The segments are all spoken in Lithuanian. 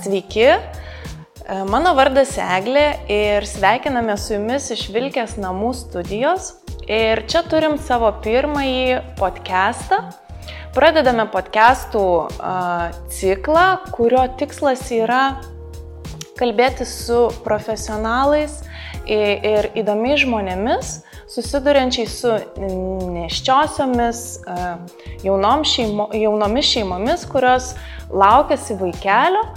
Sveiki, mano vardas Eglė ir sveikiname su jumis iš Vilkės namų studijos. Ir čia turim savo pirmąjį podcastą. Pradedame podcastų ciklą, kurio tikslas yra kalbėti su profesionalais ir įdomiais žmonėmis, susiduriančiais su nėščiosiomis jaunomis šeimomis, kurios laukiasi vaikelio.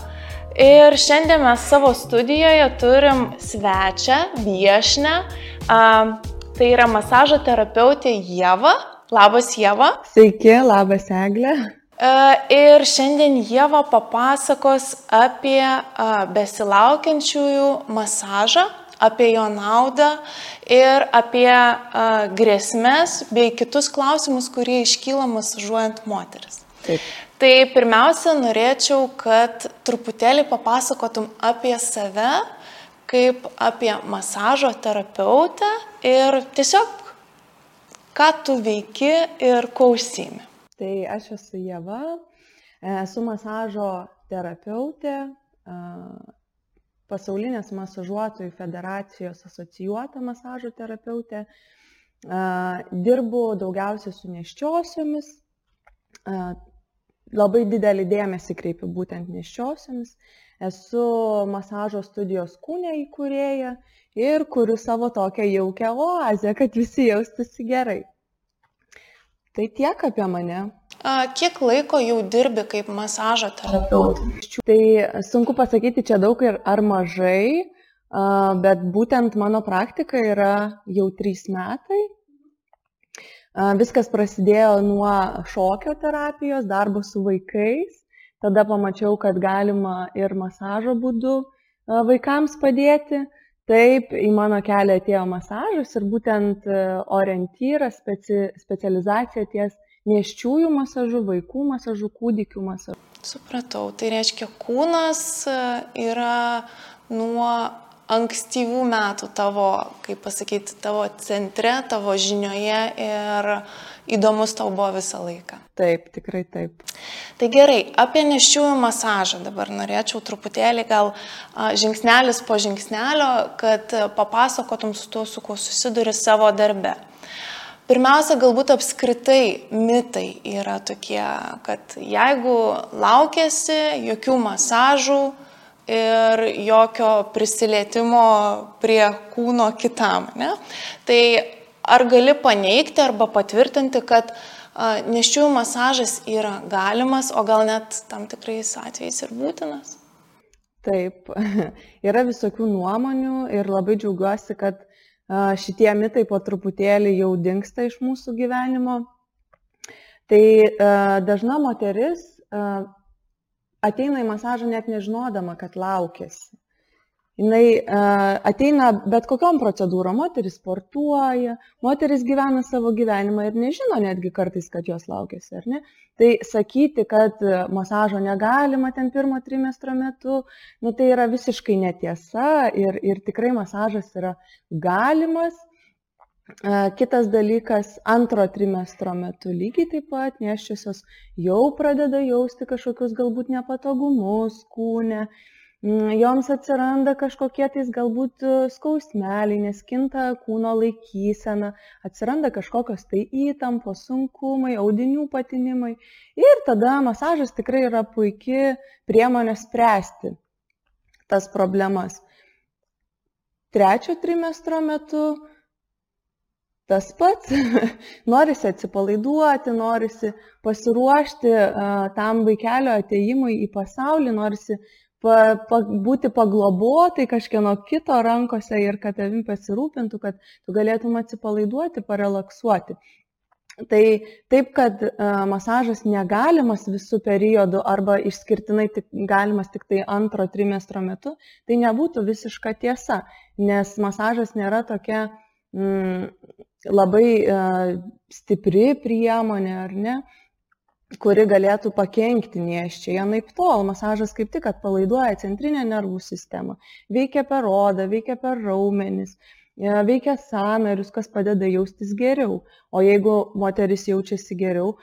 Ir šiandien mes savo studijoje turim svečią, viešnią, tai yra masažo terapeutė Ieva. Labas, Ieva. Sveiki, labas, Eglė. Ir šiandien Ieva papasakos apie besilaukiančiųjų masažą, apie jo naudą ir apie grėsmes bei kitus klausimus, kurie iškyla masažuojant moteris. Taip. Tai pirmiausia, norėčiau, kad truputėlį papasakotum apie save, kaip apie masažo terapeutę ir tiesiog, ką tu veiki ir kuo užsiimi. Tai aš esu Ieva, esu masažo terapeutė, Pasaulinės masažuotojų federacijos asocijuota masažo terapeutė. Dirbu daugiausiai su nėščiosiomis, labai didelį dėmesį kreipiu būtent nėščiosiomis. Esu masažo studijos Kūne įkūrėja ir kuriu savo tokią jaukią oazę, kad visi jaustųsi gerai. Tai tiek apie mane. Kiek laiko jau dirbi kaip masažo terapeutė? Tai sunku pasakyti čia daug ar mažai, bet būtent mano praktika yra jau 3 metai. Viskas prasidėjo nuo šokio terapijos, darbo su vaikais. Tada pamačiau, kad galima ir masažo būdu vaikams padėti. Taip, į mano kelią atėjo masažas ir būtent orientyras, specializacija ties nėščiųjų masažų, vaikų masažų, kūdikių masažų. Supratau, tai reiškia, kūnas yra nuo ankstyvų metų tavo, kaip pasakyti, tavo centre, tavo žinioje ir įdomus tau buvo visą laiką. Taip, tikrai taip. Tai gerai, apie nėščiųjų masažą dabar norėčiau truputėlį gal žingsnelis po žingsnelio, kad papasakotum su tuo, su kuo susiduri savo darbe. Pirmiausia, galbūt apskritai mitai yra tokie, kad jeigu laukiasi, jokių masažų ir jokio prisilietimo prie kūno kitam, ne? Tai ar gali paneigti arba patvirtinti, kad nėščiųjų masažas yra galimas, o gal net tam tikrais atvejais ir būtinas? Taip, yra visokių nuomonių ir labai džiaugiuosi, kad šitie mitai po truputėlį jau dingsta iš mūsų gyvenimo. Tai dažna moteris ateina į masažą net nežinodama, kad laukiasi. Jinai ateina bet kokiom procedūrom, moteris sportuoja, moteris gyvena savo gyvenimą ir nežino netgi kartais, kad jos laukiasi, ar ne? Tai sakyti, kad masažo negalima ten 1 trimestro metu, tai yra visiškai netiesa ir tikrai masažas yra galimas. Kitas dalykas, 2 trimestro metu lygiai taip pat nėščiosios jau pradeda jausti kažkokius galbūt nepatogumus kūne. Joms atsiranda kažkokie tais galbūt skausmeliai, nes kinta kūno laikysena, atsiranda kažkokios tai įtampos, sunkumai, audinių patinimai. Ir tada masažas tikrai yra puikia priemonė spręsti tas problemas. 3 trimestro metu tas pats, norisi atsipalaiduoti, norisi pasiruošti tam vaikelio atėjimui į pasaulį, norisi būti paglobotai kažkieno kito rankose ir kad tavim pasirūpintų, kad tu galėtum atsipalaiduoti, parelaksuoti. Tai taip, kad masažas negalimas visų periodų arba išskirtinai galimas tik tai 2 trimestro metu, tai nebūtų visiška tiesa, nes masažas nėra tokia labai stipri priemonė, ar ne, kuri galėtų pakenkti nėščiai. Anaiptol, masažas kaip tik atpalaiduoja centrinę nervų sistemą, veikia per odą, veikia per raumenis, veikia sąnarius, kas padeda jaustis geriau. O jeigu moteris jaučiasi geriau,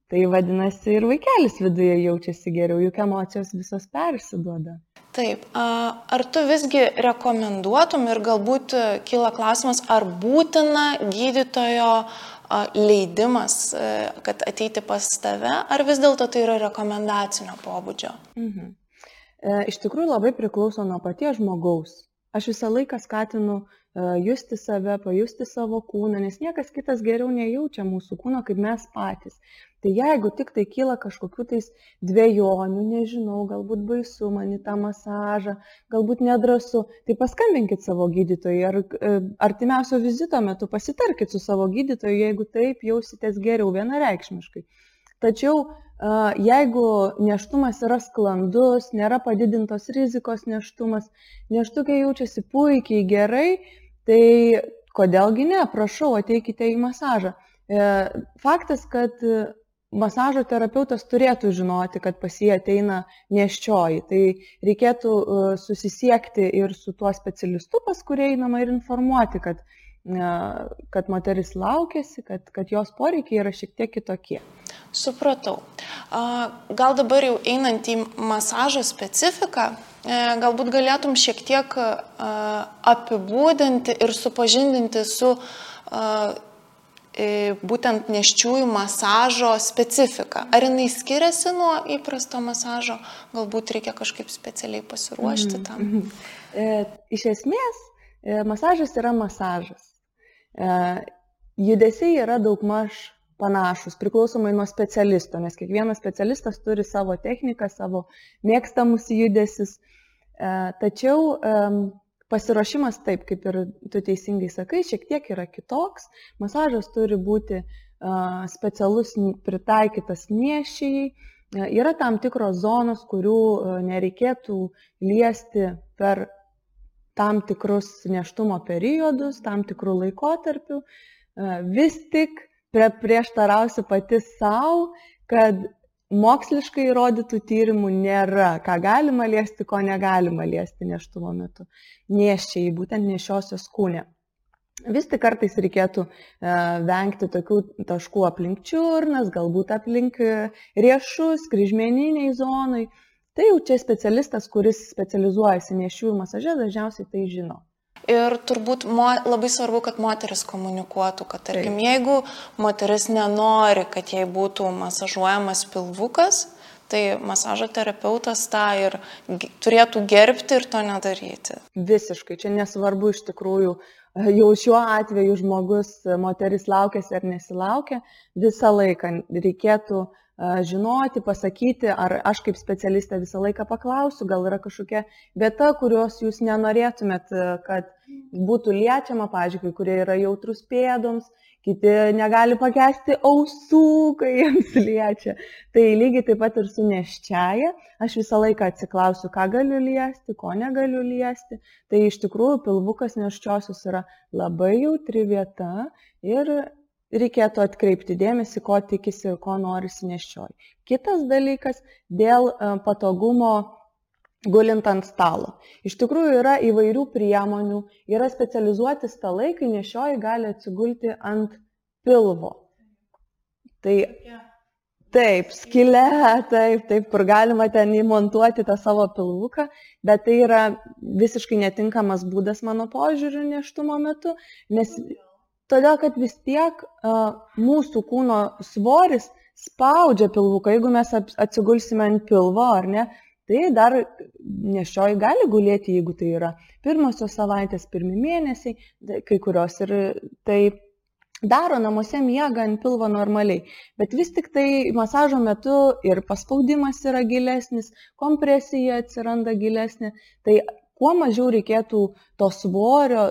Tai vadinasi, ir vaikelis viduje jaučiasi geriau, juk emocijos visos persiduoda. Taip, ar tu visgi rekomenduotum ir galbūt kyla klausimas, ar būtina gydytojo leidimas, kad ateiti pas tave, ar vis dėlto tai yra rekomendacinio pobūdžio? Iš tikrųjų labai priklauso nuo paties žmogaus. Aš visą laiką skatinu justi save, pajusti savo kūną, nes niekas kitas geriau nejaučia mūsų kūno, kaip mes patys. Tai jeigu tik tai kyla kažkokių tais dvejonių, nežinau, galbūt baisu man į tą masažą, galbūt nedrąsu, tai paskambinkit savo gydytojui ar artimiausio vizito metu pasitarkit su savo gydytoju, jeigu taip jausitės geriau vienareikšmiškai. Tačiau jeigu nėštumas yra sklandus, nėra padidintos rizikos nėštumas, nėštukė jaučiasi puikiai gerai, tai kodėlgi ne, prašau, ateikite į masažą. Faktas, kad masažo terapeutas turėtų žinoti, kad pas jį ateina nėščioji, tai reikėtų susisiekti ir su tuo specialistu, pas kurį einama, ir informuoti, kad moteris laukiasi, kad jos poreikiai yra šiek tiek kitokie. Supratau. Gal dabar jau einant į masažo specifiką, galbūt galėtum šiek tiek apibūdinti ir supažindinti su būtent nėščiųjų masažo specifika. Ar jinai skiriasi nuo įprasto masažo? Galbūt reikia kažkaip specialiai pasiruošti tam? Iš esmės, masažas yra masažas. Judesiai yra daugmaž panašus, priklausomai nuo specialisto, nes kiekvienas specialistas turi savo techniką, savo mėgstamus judesius. Tačiau pasiruošimas, taip kaip ir tu teisingai sakai, šiek tiek yra kitoks. Masažas turi būti specialus, pritaikytas nėščiai. Yra tam tikros zonos, kurių nereikėtų liesti per tam tikrus nėštumo periodus, tam tikrų laikotarpių. Vis tik prieštarausiu pati savo, kad moksliškai įrodytų tyrimų nėra, ką galima liesti, ko negalima liesti nėštumo metu. Nėščiai, būtent nėščiosios kūne. Vis tik kartais reikėtų vengti tokių taškų aplink čiurnas, galbūt aplink riešus, kryžmeniniai zonai. Tai jau čia specialistas, kuris specializuojasi nėščiųjų masaže, dažniausiai tai žino. Ir turbūt labai svarbu, kad moteris komunikuotų, kad tarkim, jeigu moteris nenori, kad jai būtų masažuojamas pilvukas, tai masažo terapeutas tą ir turėtų gerbti ir to nedaryti. Visiškai, čia nesvarbu iš tikrųjų, jau šiuo atveju žmogus, moteris laukiasi ar nesilaukia, visą laiką reikėtų žinoti, pasakyti, ar aš kaip specialistė visą laiką paklausiu, gal yra kažkokia vieta, kurios jūs nenorėtumėt, kad būtų liečiama, pavyzdžiui, kai kurie yra jautrus pėdoms, kiti negali pakęsti ausų, kai jiems liečia. Tai lygiai taip pat ir su nėščiaja, aš visą laiką atsiklausiu, ką galiu liesti, ko negaliu liesti. Tai iš tikrųjų pilvukas nėščiosios yra labai jautri vieta ir reikėtų atkreipti dėmesį, ko tikisi ir ko norisi nėščioji. Kitas dalykas, dėl patogumo gulint ant stalo. Iš tikrųjų yra įvairių priemonių, yra specializuoti stalai, kai nėščioji gali atsigulti ant pilvo. Tai taip, skylė, taip, kur galima ten įmontuoti tą savo pilvuką, bet tai yra visiškai netinkamas būdas mano požiūriu nėštumo metu, nes todėl, kad vis tiek mūsų kūno svoris spaudžia pilvuką. Jeigu mes atsigulsime ant pilvo, ar ne, tai dar nėščioji gali gulėti, jeigu tai yra pirmosios savaitės, pirmi mėnesiai, kai kurios ir tai daro namuose, miega ant pilvo normaliai. Bet vis tik tai masažo metu ir paspaudimas yra gilesnis, kompresija atsiranda gilesnė, tai kuo mažiau reikėtų to svorio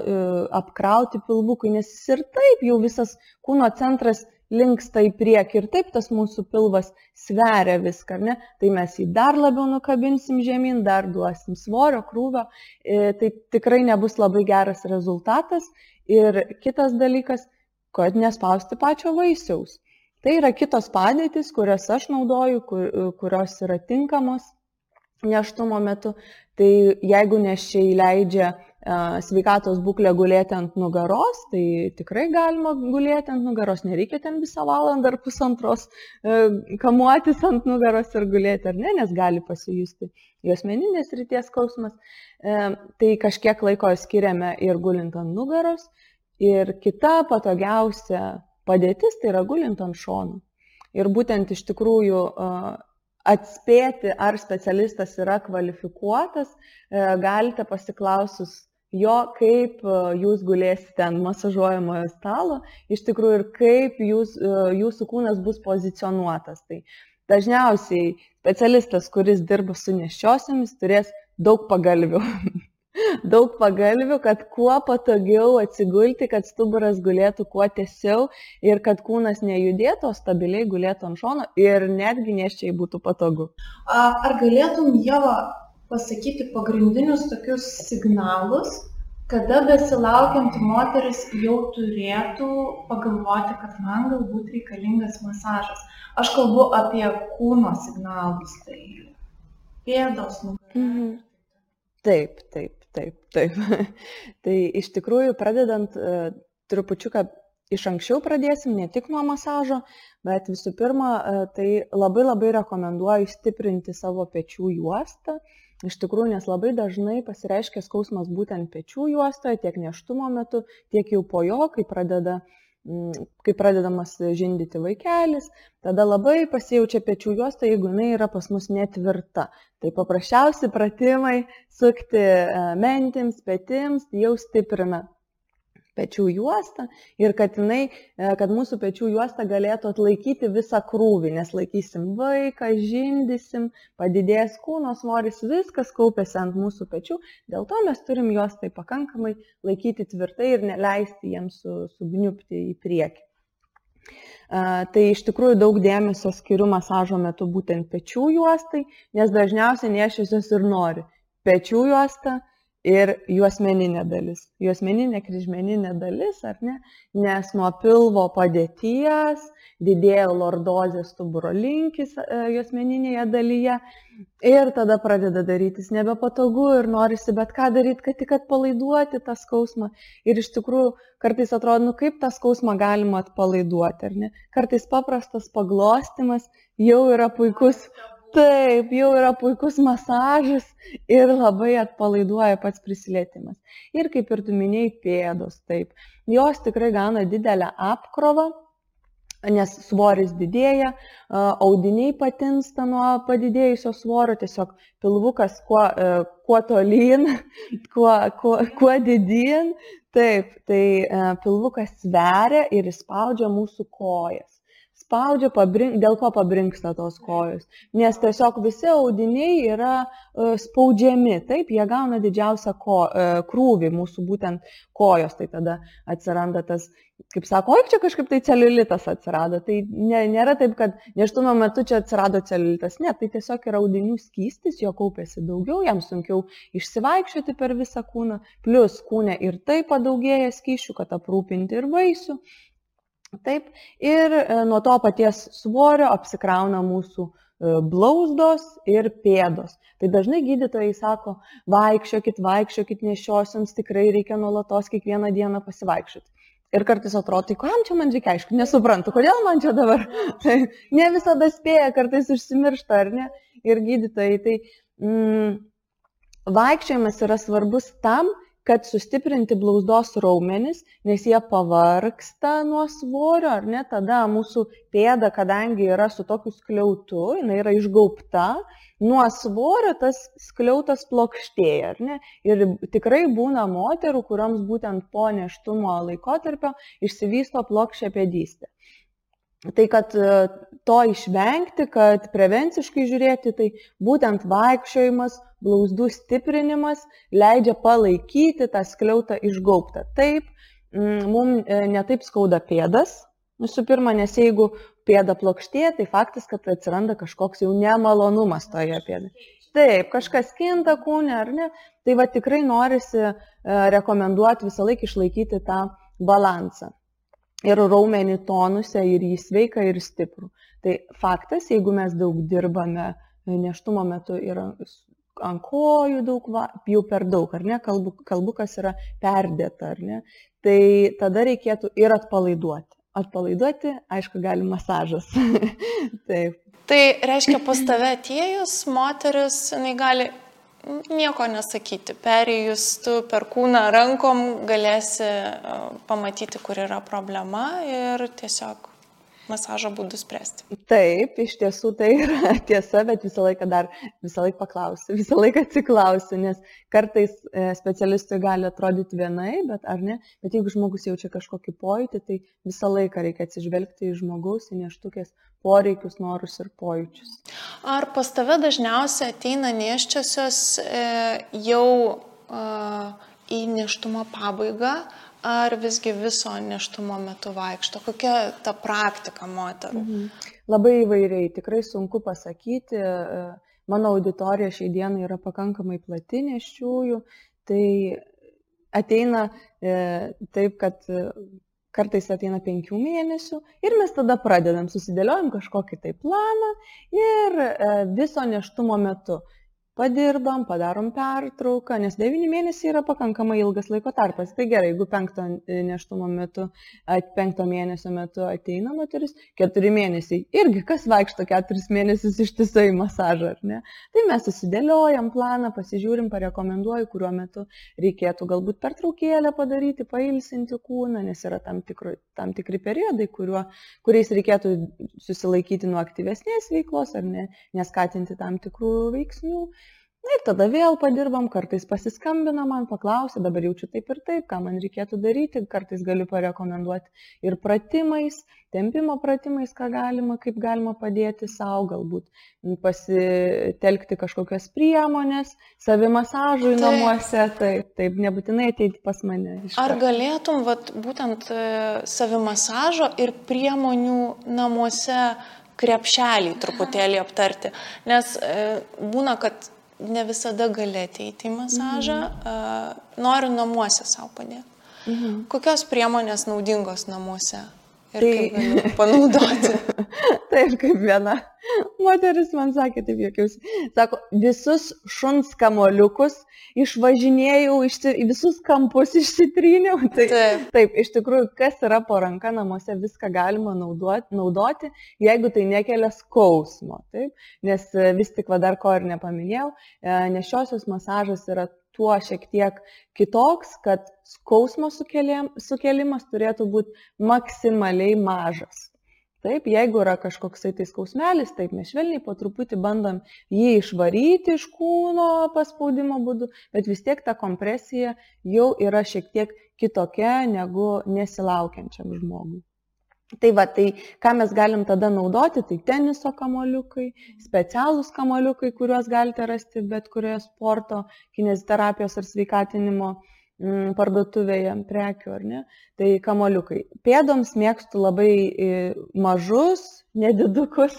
apkrauti pilvukui, nes jis ir taip jau visas kūno centras linksta į priekį ir taip tas mūsų pilvas sveria viską, ne? Tai mes jį dar labiau nukabinsim žemyn, dar duosim svorio, krūvio, tai tikrai nebus labai geras rezultatas. Ir kitas dalykas, kad nespausti pačio vaisiaus. Tai yra kitos padėtys, kurias aš naudoju, kurios yra tinkamos nėštumo metu. Tai jeigu nėščiai leidžia sveikatos būklę gulėti ant nugaros, tai tikrai galima gulėti ant nugaros, nereikia ten visą valandą ar pusantros kamuotis ant nugaros ir gulėti, ar ne, nes gali pasijusti juosmeninės srities skausmas. Tai kažkiek laiko skiriame ir gulint ant nugaros. Ir kita patogiausia padėtis tai yra gulint ant šonų. Ir būtent iš tikrųjų atspėti, ar specialistas yra kvalifikuotas, galite pasiklausus jo, kaip jūs gulėsite ant masažuojamojo stalo, iš tikrųjų ir kaip jūsų kūnas bus pozicionuotas. Tai dažniausiai specialistas, kuris dirba su nėščiosiomis, turės daug pagalvių. Daug pagalvių, kad kuo patogiau atsigulti, kad stuburas gulėtų kuo tiesiau ir kad kūnas nejudėtų, o stabiliai gulėtų ant šono ir netgi nėščiai būtų patogu. Ar galėtum, Ieva, pasakyti pagrindinius tokius signalus, kada besilaukianti moteris jau turėtų pagalvoti, kad man galbūt reikalingas masažas? Aš kalbu apie kūno signalus, tai pėdos, nugarą. Taip. Tai iš tikrųjų, pradedant trupučiuką iš anksčiau pradėsim, ne tik nuo masažo, bet visų pirma, tai labai rekomenduoju stiprinti savo pečių juostą. Iš tikrųjų, nes labai dažnai pasireiškia skausmas būtent pečių juostoje, tiek nėštumo metu, tiek jau po jo, kai pradedamas žindyti vaikelis, tada labai pasijaučia pečių juosta, jeigu jinai yra pas mus netvirta. Tai paprasčiausi pratimai sukti mentims, petims jau stiprina pečių juostą ir kad mūsų pečių juosta galėtų atlaikyti visą krūvį, nes laikysim vaiką, žindysim, padidės kūno svoris, viskas kaupiasi ant mūsų pečių, dėl to mes turim juos tai pakankamai laikyti tvirtai ir neleisti jiems sugniupti į priekį. Tai iš tikrųjų daug dėmesio skiriu masažo metu būtent pečių juostai, nes dažniausiai nėščiosios ir nori pečių juostą ir juosmeninė dalis. Juosmeninė kryžmeninė dalis, ar ne? Nes nuo pilvo padėties didėja lordozės stuburo linkis juosmeninėje dalyje ir tada pradeda darytis nebepatogu ir norisi bet ką daryti, kad tik atpalaiduoti tą skausmą. Ir iš tikrųjų kartais atrodo, kaip tą skausmą galima atpalaiduoti, ar ne? Kartais paprastas paglostimas jau yra puikus. Taip, jau yra puikus masažas ir labai atpalaiduoja pats prisilietimas. Ir kaip ir tu minėjai, pėdos, taip. Jos tikrai gauna didelę apkrovą, nes svoris didėja, audiniai patinsta nuo padidėjusio svorio, tiesiog pilvukas kuo tolyn, kuo didyn. Taip, tai pilvukas sveria ir įspaudžia mūsų kojas. Spaudžia, dėl ko pabrinksta tos kojos, nes tiesiog visi audiniai yra spaudžiami, taip, jie gauna didžiausią krūvį mūsų būtent kojos, tai tada atsiranda tas, kaip sako, čia kažkaip tai celiulitas atsirado, tai nėra taip, kad nėštumo metu čia atsirado celiulitas, ne, tai tiesiog yra audinių skystis, jo kaupiasi daugiau, jam sunkiau išsivaikščioti per visą kūną, plus kūne ir tai padaugėja skysčių, kad aprūpinti ir vaisių. Taip, ir nuo to paties svorio apsikrauna mūsų blauzdos ir pėdos. Tai dažnai gydytojai sako, vaikščiokit nėščiosioms, tikrai reikia nuolatos kiekvieną dieną pasivaikščioti. Ir kartais atrodo, tai kam čia man reikia, aišku, nesuprantu, kodėl man čia dabar. Tai ne visada spėja, kartais užsimiršta, ar ne? Ir gydytojai, tai vaikščiojimas yra svarbus tam, kad sustiprinti blauzdos raumenis, nes jie pavargsta nuo svorio, ar ne, tada mūsų pėda, kadangi yra su tokiu skliautu, jinai yra išgaubta, nuo svorio tas skliautas plokštėja, ar ne, ir tikrai būna moterų, kurioms būtent po nėštumo laikotarpio išsivysto plokščia pėdystė. Tai kad to išvengti, kad prevenciškai žiūrėti, tai būtent vaikščiojimas, blauzdų stiprinimas leidžia palaikyti tą skliautą išgaubtą. Taip, mums netaip skauda pėdas, visų pirma, nes jeigu pėda plokštėja, tai faktas, kad atsiranda kažkoks jau nemalonumas toje pėdoje. Taip, kažkas kinta kūne, ar ne? Tai va tikrai norisi rekomenduoti visą laiką išlaikyti tą balansą. Ir raumenį tonuse, ir jį sveiką, ir stiprų. Tai faktas, jeigu mes daug dirbame nėštumo metu ir ant kojų daug, jau per daug, ar ne, kalbu, kas yra perdėta, ar ne, tai tada reikėtų ir atpalaiduoti. Atpalaiduoti, aišku, gali masažas. Taip. Tai reiškia, pas tave atėjus, moteris, jinai gali nieko nesakyti. Perėjus tu per kūną rankom galėsi pamatyti, kur yra problema ir tiesiog masažo būdų spręsti. Taip, iš tiesų tai yra tiesa, bet visą laiką paklausiu, visą laiką atsiklausiu, nes kartais specialistui gali atrodyti vienai, bet jeigu žmogus jaučia kažkokį pojūtį, tai visą laiką reikia atsižvelgti į žmogaus, į nėštukės poreikius, norus ir pojūčius. Ar pas tave dažniausiai ateina nėščiosios jau į nėštumo pabaigą, ar visgi viso nėštumo metu vaikšto? Kokia ta praktika moterų? Labai įvairiai, tikrai sunku pasakyti. Mano auditorija šiai dienai yra pakankamai plati nėščiųjų, tai ateina taip, kad kartais ateina 5 mėnesių ir mes tada pradedam, susidėliojam kažkokį tai planą ir viso nėštumo metu padirbam, padarom pertrauką, nes 9 mėnesiai yra pakankamai ilgas laiko tarpas. Tai gerai, jeigu 5 mėnesio metu ateina moteris, 4 mėnesiai. Irgi kas vaikšto 4 mėnesius ištisai masažą, ar ne? Tai mes susidėliojam planą, pasižiūrim, parekomenduoju, kuriuo metu reikėtų galbūt pertraukėlę padaryti, pailsinti kūną, nes yra tam tikri periodai, kuriais reikėtų susilaikyti nuo aktyvesnės veiklos, ar ne, neskatinti tam tikrų veiksnių. Ir tada vėl padirbam, kartais pasiskambina man, paklausia, dabar jaučiu taip ir taip, ką man reikėtų daryti, kartais galiu parekomenduoti ir pratimais, tempimo pratimais, kaip galima padėti savo, galbūt pasitelkti kažkokias priemonės, savimasažui namuose, taip, nebūtinai ateiti pas mane. Ar galėtum būtent savimasažo ir priemonių namuose krepšelį truputėlį aptarti, nes būna, kad ne visada gali ateiti į masažą, noriu namuose savo padėti. Kokios priemonės naudingos namuose ir kaip galiu panaudoti? Taip, kaip viena moteris man sakė, taip jokiausi, sako, visus šuns kamoliukus išvažinėjau, visus kampus išsitryniau. Taip, iš tikrųjų, kas yra po ranka namuose, viską galima naudoti, jeigu tai nekelia skausmo. Taip? Nes vis tik dar ko ir nepaminėjau, nėščiosios masažas yra tuo šiek tiek kitoks, kad skausmo sukelimas turėtų būti maksimaliai mažas. Taip, jeigu yra kažkoksai tai skausmelis, taip mes švelniai po truputį bandom jį išvaryti iš kūno paspaudimo būdu, bet vis tiek ta kompresija jau yra šiek tiek kitokia negu nesilaukiančiam žmogui. Tai ką mes galim tada naudoti, tai teniso kamuoliukai, specialūs kamuoliukai, kuriuos galite rasti bet kurioje sporto, kineziterapijos ar sveikatinimo parduotuvėje prekių, ar ne? Tai kamuoliukai. Pėdoms mėgstu labai mažus, nedidukus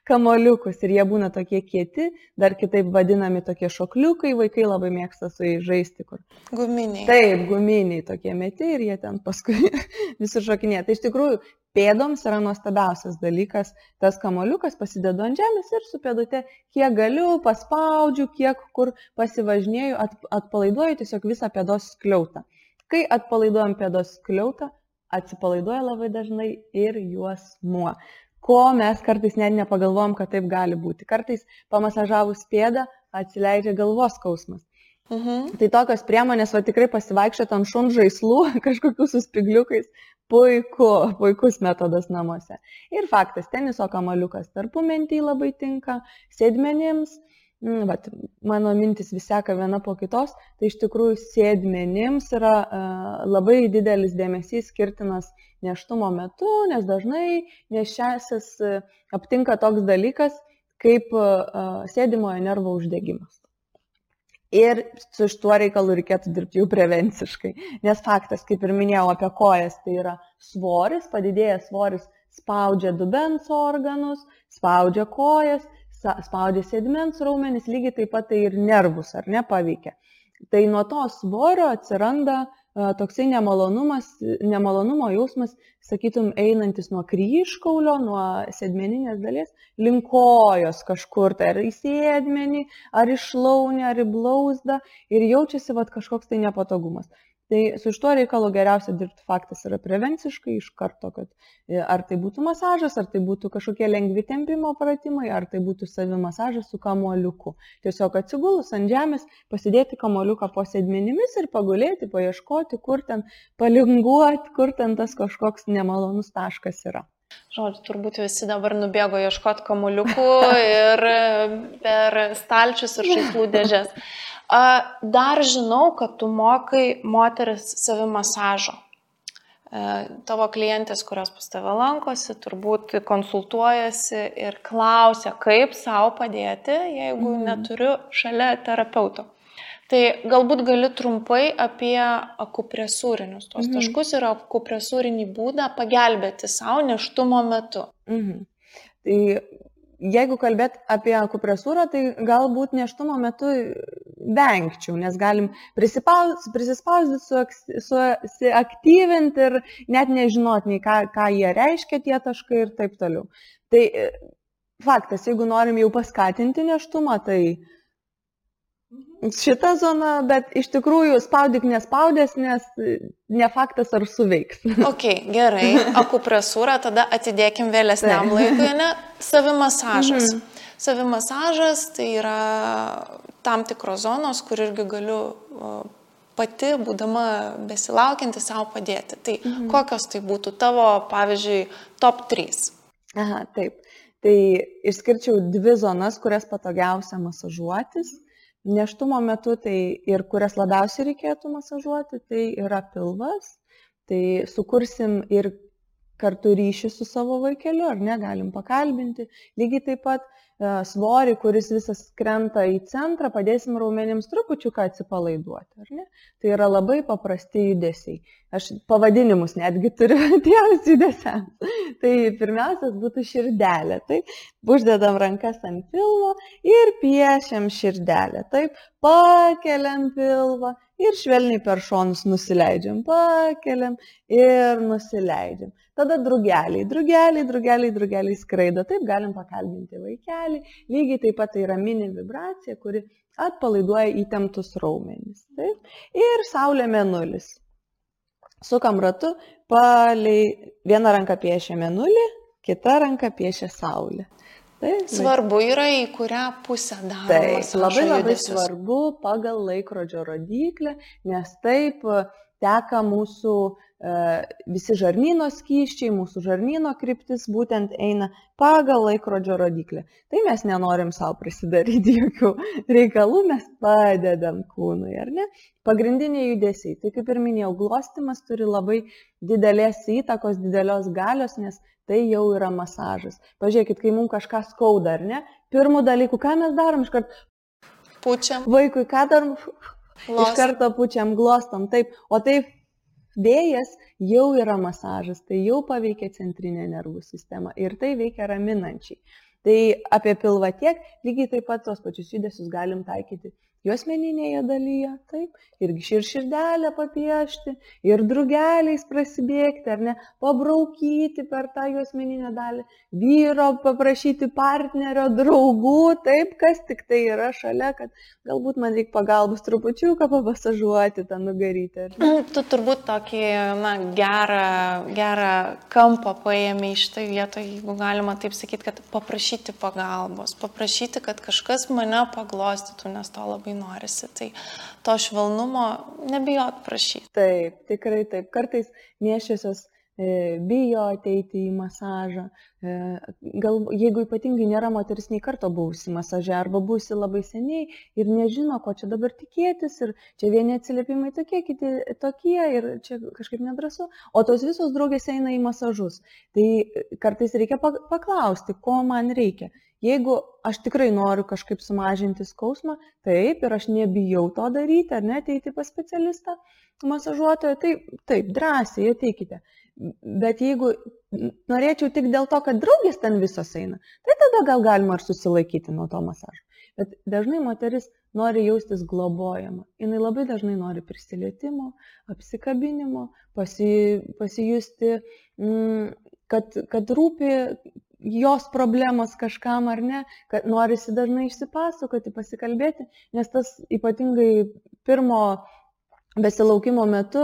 kamuoliukus ir jie būna tokie kieti, dar kitaip vadinami tokie šokliukai, vaikai labai mėgsta su jais žaisti. Guminiai. Taip, guminiai tokie meti ir jie ten paskui visi šokinėja. Tai iš tikrųjų pėdoms yra nuostabiausias dalykas, tas kamuoliukas pasidedu ant žemės ir su pėdute kiek galiu, paspaudžiu, kiek kur pasivažinėju, atpalaiduoju tiesiog visą pėdos skliautą. Kai atpalaiduojam pėdos skliautą, atsipalaiduoja labai dažnai ir juosmuo. Ko mes kartais net nepagalvojam, kad taip gali būti. Kartais pamasažavus pėdą atsileidžia galvos skausmas. Tai tokios priemonės, tikrai pasivaikščioti ant šuns žaislų, kažkokių su spigliukais, puikus metodas namuose. Ir faktas, teniso kamuoliukas tarpumentį labai tinka, sėdmenims, mano mintis vis seka viena po kitos, tai iš tikrųjų sėdmenims yra labai didelis dėmesys skirtinas nėštumo metu, nes dažnai nėščiasis aptinka toks dalykas kaip sėdimojo nervo uždegimas. Ir su šituo reikalu reikėtų dirbti jau prevenciškai, nes faktas, kaip ir minėjau apie kojas, tai yra svoris, padidėjęs svoris spaudžia dubens organus, spaudžia kojas, spaudžia sėdmens raumenis, lygiai taip pat tai ir nervus, ar ne, paveikia. Tai nuo to svorio atsiranda toksai nemalonumo jausmas, sakytum, einantis nuo kryžkaulio, nuo sėdmeninės dalies, link kojos kažkur, tai ar į sėdmenį, ar į šlaunį, ar į blauzdą ir jaučiasi kažkoks tai nepatogumas. Tai su šituo reikalu geriausia dirbti faktas yra prevenciškai iš karto, kad ar tai būtų masažas, ar tai būtų kažkokie lengvi tempimo pratimai, ar tai būtų savimasažas su kamuoliuku. Tiesiog atsigulus ant žemės, pasidėti kamuoliuką po sėdmenimis ir pagulėti, paieškoti, kur ten palinguoti, kur ten tas kažkoks nemalonus taškas yra. Žodžiu, turbūt visi dabar nubėgo ieškoti kamuoliukų ir per stalčius ir žaislų dėžės. Dar žinau, kad tu mokai moteris savimasažo. Tavo klientės, kurios pas tave lankosi, turbūt konsultuojasi ir klausia, kaip savo padėti, jeigu neturiu šalia terapeuto. Tai galbūt gali trumpai apie akupresūrinius tos taškus ir akupresūrinį būdą pagelbėti savo nėštumo metu. Tai jeigu kalbėt apie akupresūrą, tai galbūt nėštumo metu vengčiau, nes galim prisispausdyti, suaktyvinti ir net nežinot nei ką jie reiškia tie taškai ir taip toliau. Tai faktas, jeigu norim jau paskatinti nėštumą, tai šitą zoną, bet iš tikrųjų spaudyk nespaudės, nes ne faktas ar suveiks. Ok, gerai, akupresūrą tada atidėkim vėlesniam laikui, ne? Savimasažas. Savimasažas tai yra tam tikros zonos, kur irgi galiu pati, būdama besilaukianti, savo padėti. Tai kokios tai būtų tavo, pavyzdžiui, top 3? Aha, taip. Tai išskirčiau 2 zonas, kurias patogiausia masažuotis. Nėštumo metu tai ir kurias labiausiai reikėtų masažuoti, tai yra pilvas. Tai sukursim ir kartu ryšį su savo vaikeliu, ar ne, galim pakalbinti. Lygiai taip pat svorį, kuris visas krenta į centrą, padėsim raumenims trupučiuką atsipalaiduoti, ar ne? Tai yra labai paprasti judesiai. Aš pavadinimus netgi turiu tiems judesiams. Tai pirmiausias būtų širdelė. Taip, uždedam rankas ant pilvo ir piešiam širdelę. Taip, pakeliam pilvą ir švelniai per šonus nusileidžiam. Pakeliam ir nusileidžiam. Tada drugeliai skraido. Taip, galim pakalbinti vaikelį. Lygiai taip pat tai yra mini vibracija, kuri atpalaiduoja įtemptus raumenis. Taip. Ir saulė mėnulis. Sukam ratu, viena ranka piešia mėnulį, kita ranka piešia saulę. Taip, svarbu yra, į kurią pusę daromas. Taip, labai svarbu pagal laikrodžio rodiklę, nes taip teka mūsų visi žarnyno skysčiai, mūsų žarnyno kryptis būtent eina pagal laikrodžio rodiklę. Tai mes nenorim savo prisidaryti jokių reikalų, mes padedam kūnui, ar ne? Pagrindiniai judesiai. Tai kaip ir minėjau, glostymas turi labai didelės įtakos, didelios galios, nes tai jau yra masažas. Pažiūrėkit, kai mums kažką skauda, ar ne? Pirmų dalykų, ką mes darom, iškart pučiam. Vaikui, ką darom? Iš karto pučiam, glostom. Taip, o taip vėjas jau yra masažas, tai jau paveikia centrinę nervų sistemą ir tai veikia raminančiai. Tai apie pilvą tiek, lygiai taip pat tos pačius judesius galim taikyti juosmeninėje dalyje, taip, irgi širdelę papiešti, ir drugeliais prasibėgti, ar ne, pabraukyti per tą juosmeninę dalį, vyro paprašyti partnerio, draugų, taip, kas tik tai yra šalia, kad galbūt man reikia pagalbos trupučiuką papasažuoti tą nugarytę. Tu turbūt tokį gerą kampą paėmė iš tai vietoj, jeigu galima taip sakyti, kad paprašyti pagalbos, paprašyti, kad kažkas mane paglostytų, nes to labai norisi. Tai to švelnumo nebijot prašyti. Taip, tikrai taip. Kartais nėščiosios bijo ateiti į masažą. Jeigu ypatingai nėra moteris nei karto buvusi masaže arba buvusi labai seniai ir nežino, ko čia dabar tikėtis ir čia vieni atsiliepimai tokie, kiti tokie ir čia kažkaip nedrąsu, o tos visos draugės eina į masažus. Tai kartais reikia paklausti, ko man reikia. Jeigu aš tikrai noriu kažkaip sumažinti skausmą, taip, ir aš nebijau to daryti, ar ne, ateiti pas specialistą, masažuotoją, taip, drąsiai ateikite. Bet jeigu norėčiau tik dėl to, kad draugės ten visos eina, tai tada gal galima ir susilaikyti nuo to masažo. Bet dažnai moteris nori jaustis globojama. Jis labai dažnai nori prisilietimo, apsikabinimo, pasijusti, kad rūpi jos problemos kažkam ar ne, kad norisi dažnai išsipasakoti, pasikalbėti, nes tas ypatingai pirmo besilaukimo metu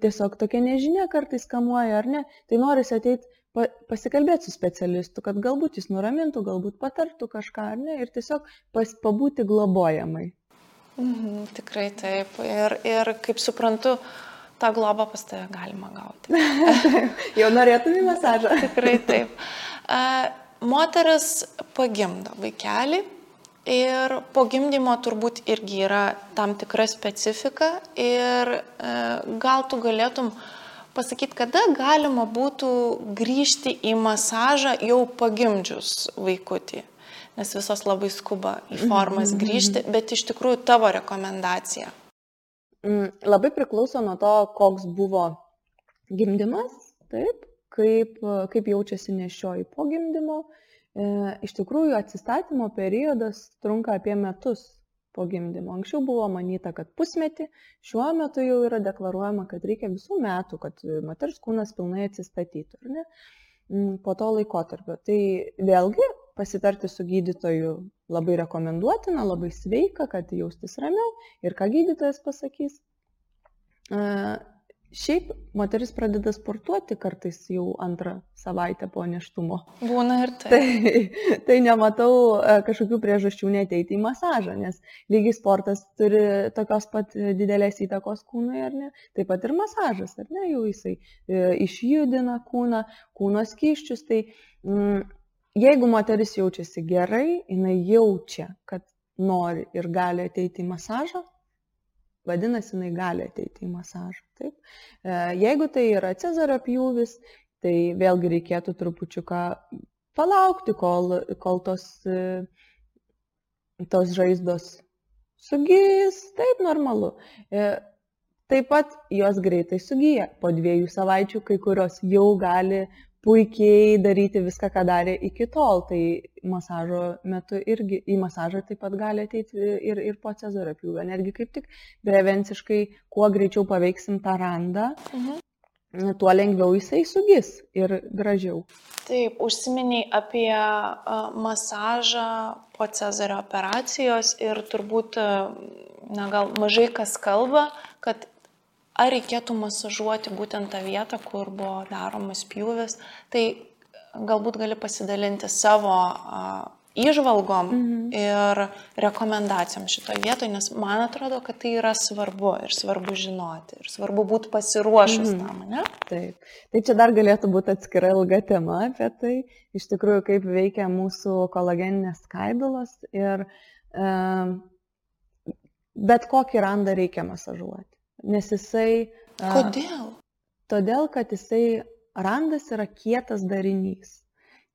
tiesiog tokia nežinia kartais kamuoja ar ne, tai norisi ateiti pasikalbėti su specialistu, kad galbūt jis nuramintų, galbūt patartų kažką ar ne ir tiesiog pabūti globojamai. Tikrai taip. Ir kaip suprantu, tą globą pas tave galima gauti. Jau norėtum į masažą. Tikrai taip. Moteris pagimdo vaikelį ir po gimdymo turbūt irgi yra tam tikra specifika ir gal tu galėtum pasakyti, kada galima būtų grįžti į masažą jau pagimdžius vaikutį, nes visos labai skuba į formas grįžti, bet iš tikrųjų tavo rekomendacija. Labai priklauso nuo to, koks buvo gimdymas, taip, kaip jaučiasi nėščioji po gimdymo. Iš tikrųjų, atsistatymo periodas trunka apie metus po gimdymo. Anksčiau buvo manyta, kad pusmetį, šiuo metu jau yra deklaruojama, kad reikia visų metų, kad moters kūnas pilnai atsistatytų, ar ne? Po to laikotarpio. Tai vėlgi pasitarti su gydytoju labai rekomenduotina, labai sveika, kad jaustis ramiau ir ką gydytojas pasakys. Šiaip moteris pradeda sportuoti kartais jau antrą savaitę po nėštumo. Būna ir tai. Tai nematau kažkokių priežasčių neteiti į masažą, nes lygiai sportas turi tokios pat didelės įtakos kūnui, ar ne? Taip pat ir masažas, ar ne? Jau jisai išjudina kūno skysčius. Tai jeigu moteris jaučiasi gerai, jinai jaučia, kad nori ir gali ateiti į masažą, vadinasi, jinai gali ateiti į masažą. Taip. Jeigu tai yra cezario pjūvis, tai vėlgi reikėtų trupučiuką palaukti, kol tos žaizdos sugys, taip normalu. Taip pat jos greitai sugyja. Po 2 savaičių kai kurios jau gali puikiai daryti viską, ką darė iki tol. Tai masažo metu irgi į masažą taip pat gali ateiti ir po cezario pjūvio. Netgi kaip tik prevenciškai, kuo greičiau paveiksim tą randą, tuo lengviau jisai sugis ir gražiau. Taip, užsiminiai apie masažą po cezario operacijos ir turbūt, gal mažai kas kalba, kad ar reikėtų masažuoti būtent tą vietą, kur buvo daromas pjūvis, tai galbūt gali pasidalinti savo įžvalgom ir rekomendacijom šitoje vietoje, nes man atrodo, kad tai yra svarbu ir svarbu žinoti ir svarbu būti pasiruošus tam, ne? Taip. Tai čia dar galėtų būti atskira ilga tema apie tai, iš tikrųjų, kaip veikia mūsų kolageninės skaidulos ir bet kokį randą reikia masažuoti. Nes jisai... Kodėl? Todėl, kad jisai randas yra kietas darinys.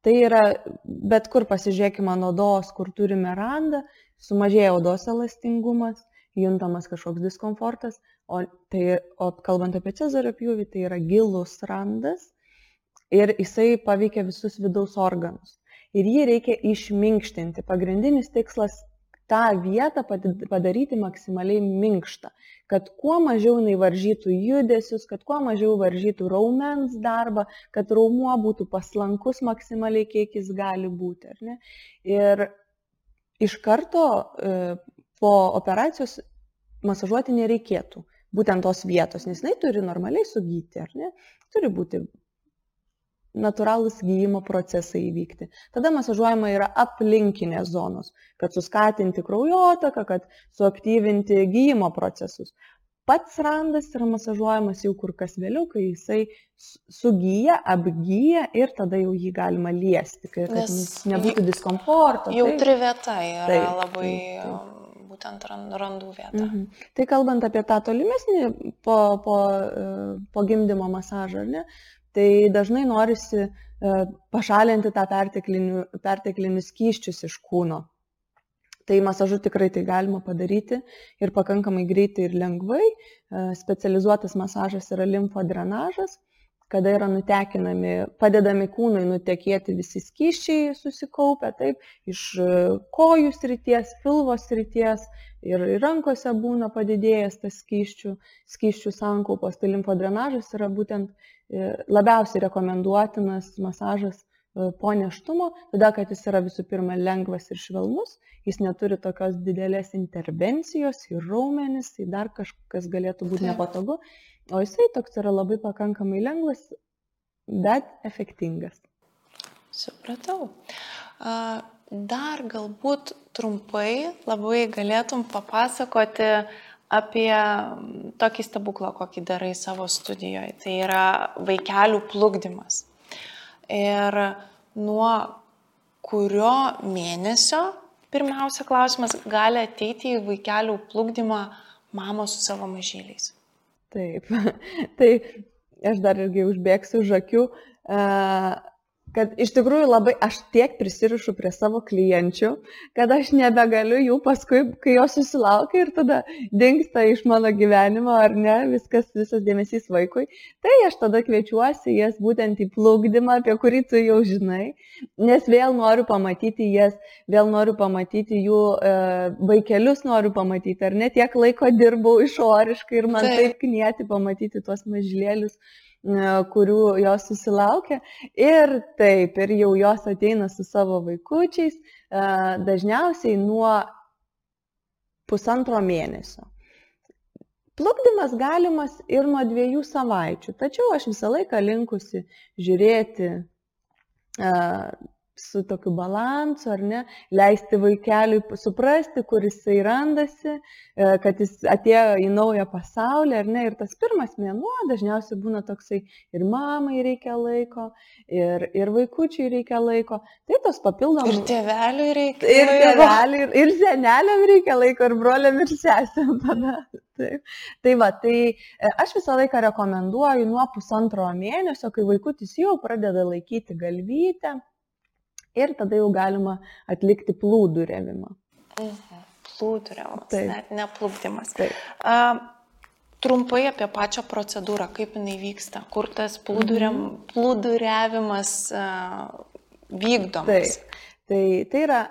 Tai yra, bet kur pasižiūrėkime ant odos, kur turime randą, sumažėja odos elastingumas, juntamas kažkoks diskomfortas, o kalbant apie cezario pjūvį, tai yra gilus randas ir jisai paveikia visus vidaus organus. Ir jį reikia išminkštinti. Pagrindinis tikslas tą vietą padaryti maksimaliai minkštą, kad kuo mažiau jinai varžytų judesius, kad kuo mažiau varžytų raumens darbą, kad raumuo būtų paslankus maksimaliai, kiek jis gali būti. Ar ne? Ir iš karto po operacijos masažuoti nereikėtų būtent tos vietos, nes jinai turi normaliai sugyti, ar ne? Turi būti natūralūs gyjimo procesai įvykti. Tada masažuojama yra aplinkinės zonos, kad suskatinti kraujotaką, kad suaktyvinti gyjimo procesus. Pats randas yra masažuojamas jau kur kas vėliau, kai jisai sugyja, apgyja ir tada jau jį galima liesti, kad nebūtų diskomforto. Jautri vieta yra labai būtent randų vieta. Tai kalbant apie tą tolimesnį po gimdymo masažą, ar ne? Tai dažnai norisi pašalinti tą perteklinius skysčius iš kūno. Tai masažu tikrai tai galima padaryti ir pakankamai greitai ir lengvai. Specializuotas masažas yra limfodrenažas. kada yra nutekinami, padedami kūnai nutekėti visi skysčiai susikaupę, taip, iš kojų srities, pilvo srities ir rankose būna padidėjęs tas skysčių sankaupos. Tai limfodrenažas yra būtent labiausiai rekomenduotinas masažas po nėštumo, todėl kad jis yra visų pirma lengvas ir švelnus, jis neturi tokios didelės intervencijos į raumenis, tai dar kažkas galėtų būti nepatogu, o jisai toks yra labai pakankamai lengvas, bet efektingas. Supratau. Dar galbūt trumpai labai galėtum papasakoti apie tokį stebuklą, kokį darai savo studijoje. Tai yra vaikelių plukdymas. Ir nuo kurio mėnesio, pirmiausia klausimas, gali ateiti į vaikelių plukdymą mamos su savo mažyliais? Taip, tai aš dar irgi užbėgsiu už akių, kad iš tikrųjų labai aš tiek prisirišu prie savo klienčių, kad aš nebegaliu jų paskui, kai jos susilaukia ir tada dingsta iš mano gyvenimo, ar ne, visas dėmesys vaikui, tai aš tada kviečiuosi jas būtent į plukdymą, apie kurį tu jau žinai, nes vėl noriu pamatyti jas, vėl noriu pamatyti jų vaikelius, noriu pamatyti, ar ne, tiek laiko dirbau išoriškai ir man taip knieti pamatyti tuos mažylėlius, kurių jos susilaukia ir taip, ir jau jos ateina su savo vaikučiais, dažniausiai nuo 1,5 mėnesio. Plukdymas galimas ir nuo 2 savaičių, tačiau aš visą laiką linkusi žiūrėti su tokiu balansu, ar ne, leisti vaikeliui suprasti, kur jisai randasi, kad jis atėjo į naują pasaulį, ar ne, ir tas pirmas mėnuo dažniausiai būna toksai ir mamai reikia laiko, ir vaikučiui reikia laiko, tai tos papildomos. Ir tėveliui reikia laiko. Ir tėveliui, ir seneliam reikia laiko, ir broliam, ir sesėm tada. Taip. Tai va, tai aš visą laiką rekomenduoju nuo 1,5 mėnesio, kai vaikutis jau pradeda laikyti galvytę, ir tada jau galima atlikti plūduriavimą. Plūduriavimas, net ne plukdymas. Trumpai apie pačią procedūrą, kaip jinai vyksta, kur tas plūduriavimas vykdomas. Tai yra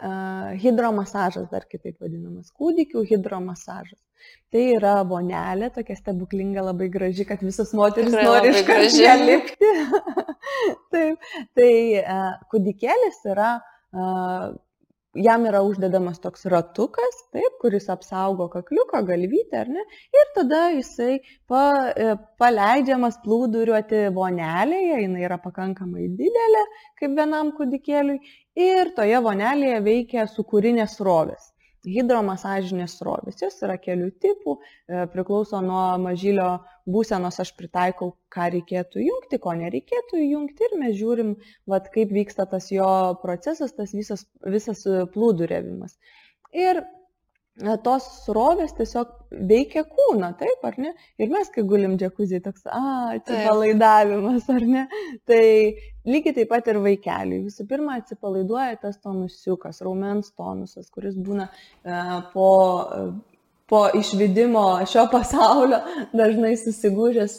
hidromasažas, dar kitaip vadinamas, kūdikių hidromasažas. Tai yra vonelė, tokia stebuklinga, labai graži, kad visos moteris nori iškart ją lipti. Taip, tai kūdikėlis yra, jam yra uždedamas toks ratukas, taip, kuris apsaugo kakliuką, galvytę, ar ne, ir tada jisai paleidžiamas plūduriuoti vonelėje, jinai yra pakankamai didelė, kaip vienam kūdikėliui, ir toje vonelėje veikia sūkurinės srovės. Hidromasažinės srovės, jos yra kelių tipų, priklauso nuo mažylio būsenos, aš pritaikau, ką reikėtų jungti, ko nereikėtų jungti ir mes žiūrim, vat, kaip vyksta tas jo procesas, tas visas plūduriavimas. Ir tos srovės tiesiog veikia kūną, taip, ar ne? Ir mes, kai gulim džekuzį, toks, atsipalaidavimas, ar ne? Tai lygiai taip pat ir vaikeliui. Visų pirma, atsipalaiduoja tas tonusiukas, raumens tonusas, kuris būna po išvedimo šio pasaulio dažnai susigūžęs,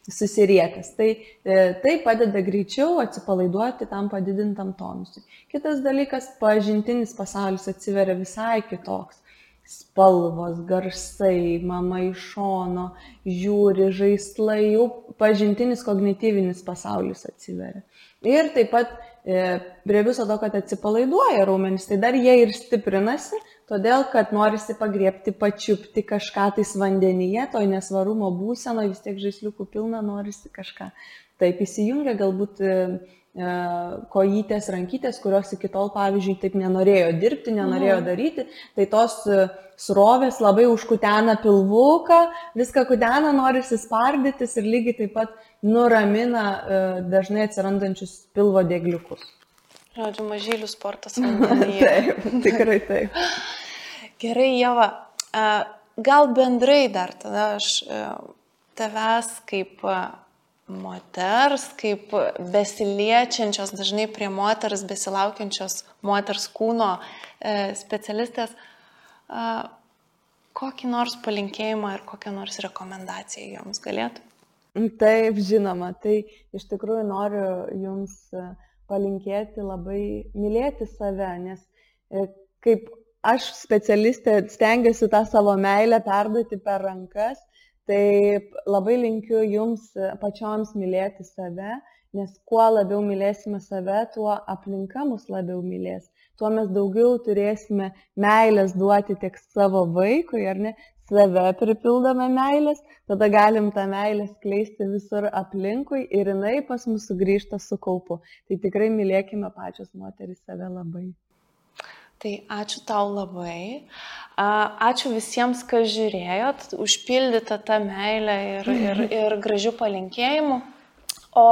susiriekęs. Tai padeda greičiau atsipalaiduoti tam padidintam tonusui. Kitas dalykas, pažintinis pasaulis atsiveria visai kitoks. Spalvos, garsai, mama iš šono, žiūri, žaislai, jau pažintinis kognityvinis pasaulis atsiveria. Ir taip pat prie viso to, kad atsipalaiduoja raumenys, tai dar jie ir stiprinasi, todėl, kad norisi pagriebti, pačiupti kažką tais vandenyje, toj nesvarumo būseno, vis tiek žaisliukų pilna, norisi kažką. Taip įsijungia galbūt kojytės, rankytės, kurios iki tol, pavyzdžiui, taip nenorėjo dirbti, nenorėjo daryti, tai tos srovės labai užkutena pilvuką, viską kutena, norisi spardytis ir lygiai taip pat nuramina dažnai atsirandančius pilvo dėgliukus. Žodžiu, mažylių sportas vandenyje. Taip, tikrai taip. Gerai, Ieva, gal bendrai dar tada aš tavęs kaip moters, kaip besiliečiančios, dažnai prie moters, besilaukiančios moters kūno specialistės, kokį nors palinkėjimą ir kokią nors rekomendaciją joms galėtų? Taip, žinoma. Tai iš tikrųjų noriu Jums palinkėti labai mylėti save, nes kaip aš specialistė stengiuosi tą savo meilę perduoti per rankas, tai labai linkiu Jums pačioms mylėti save, nes kuo labiau mylėsime save, tuo aplinka mus labiau mylės. Tuo mes daugiau turėsime meilės duoti tiek savo vaikui, ar ne, save pripildome meilės, tada galim tą meilę skleisti visur aplinkui ir jinai pas mus sugrįžta su kaupu. Tai tikrai mylėkime pačios moterys save labai. Tai ačiū tau labai. Ačiū visiems, kas žiūrėjot, užpildyta tą meilę ir gražių palinkėjimų. O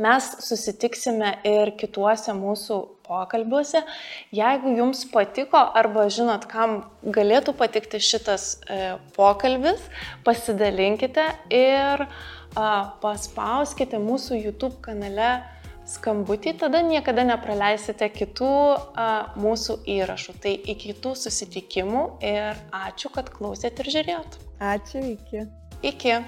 mes susitiksime ir kituose mūsų pokalbiuose. Jeigu jums patiko arba žinot, kam galėtų patikti šitas pokalbis, pasidalinkite ir paspauskite mūsų YouTube kanale skambutį, tada niekada nepraleisite kitų mūsų įrašų. Tai iki kitų susitikimų ir ačiū, kad klausėt ir žiūrėjot. Ačiū, iki. Iki.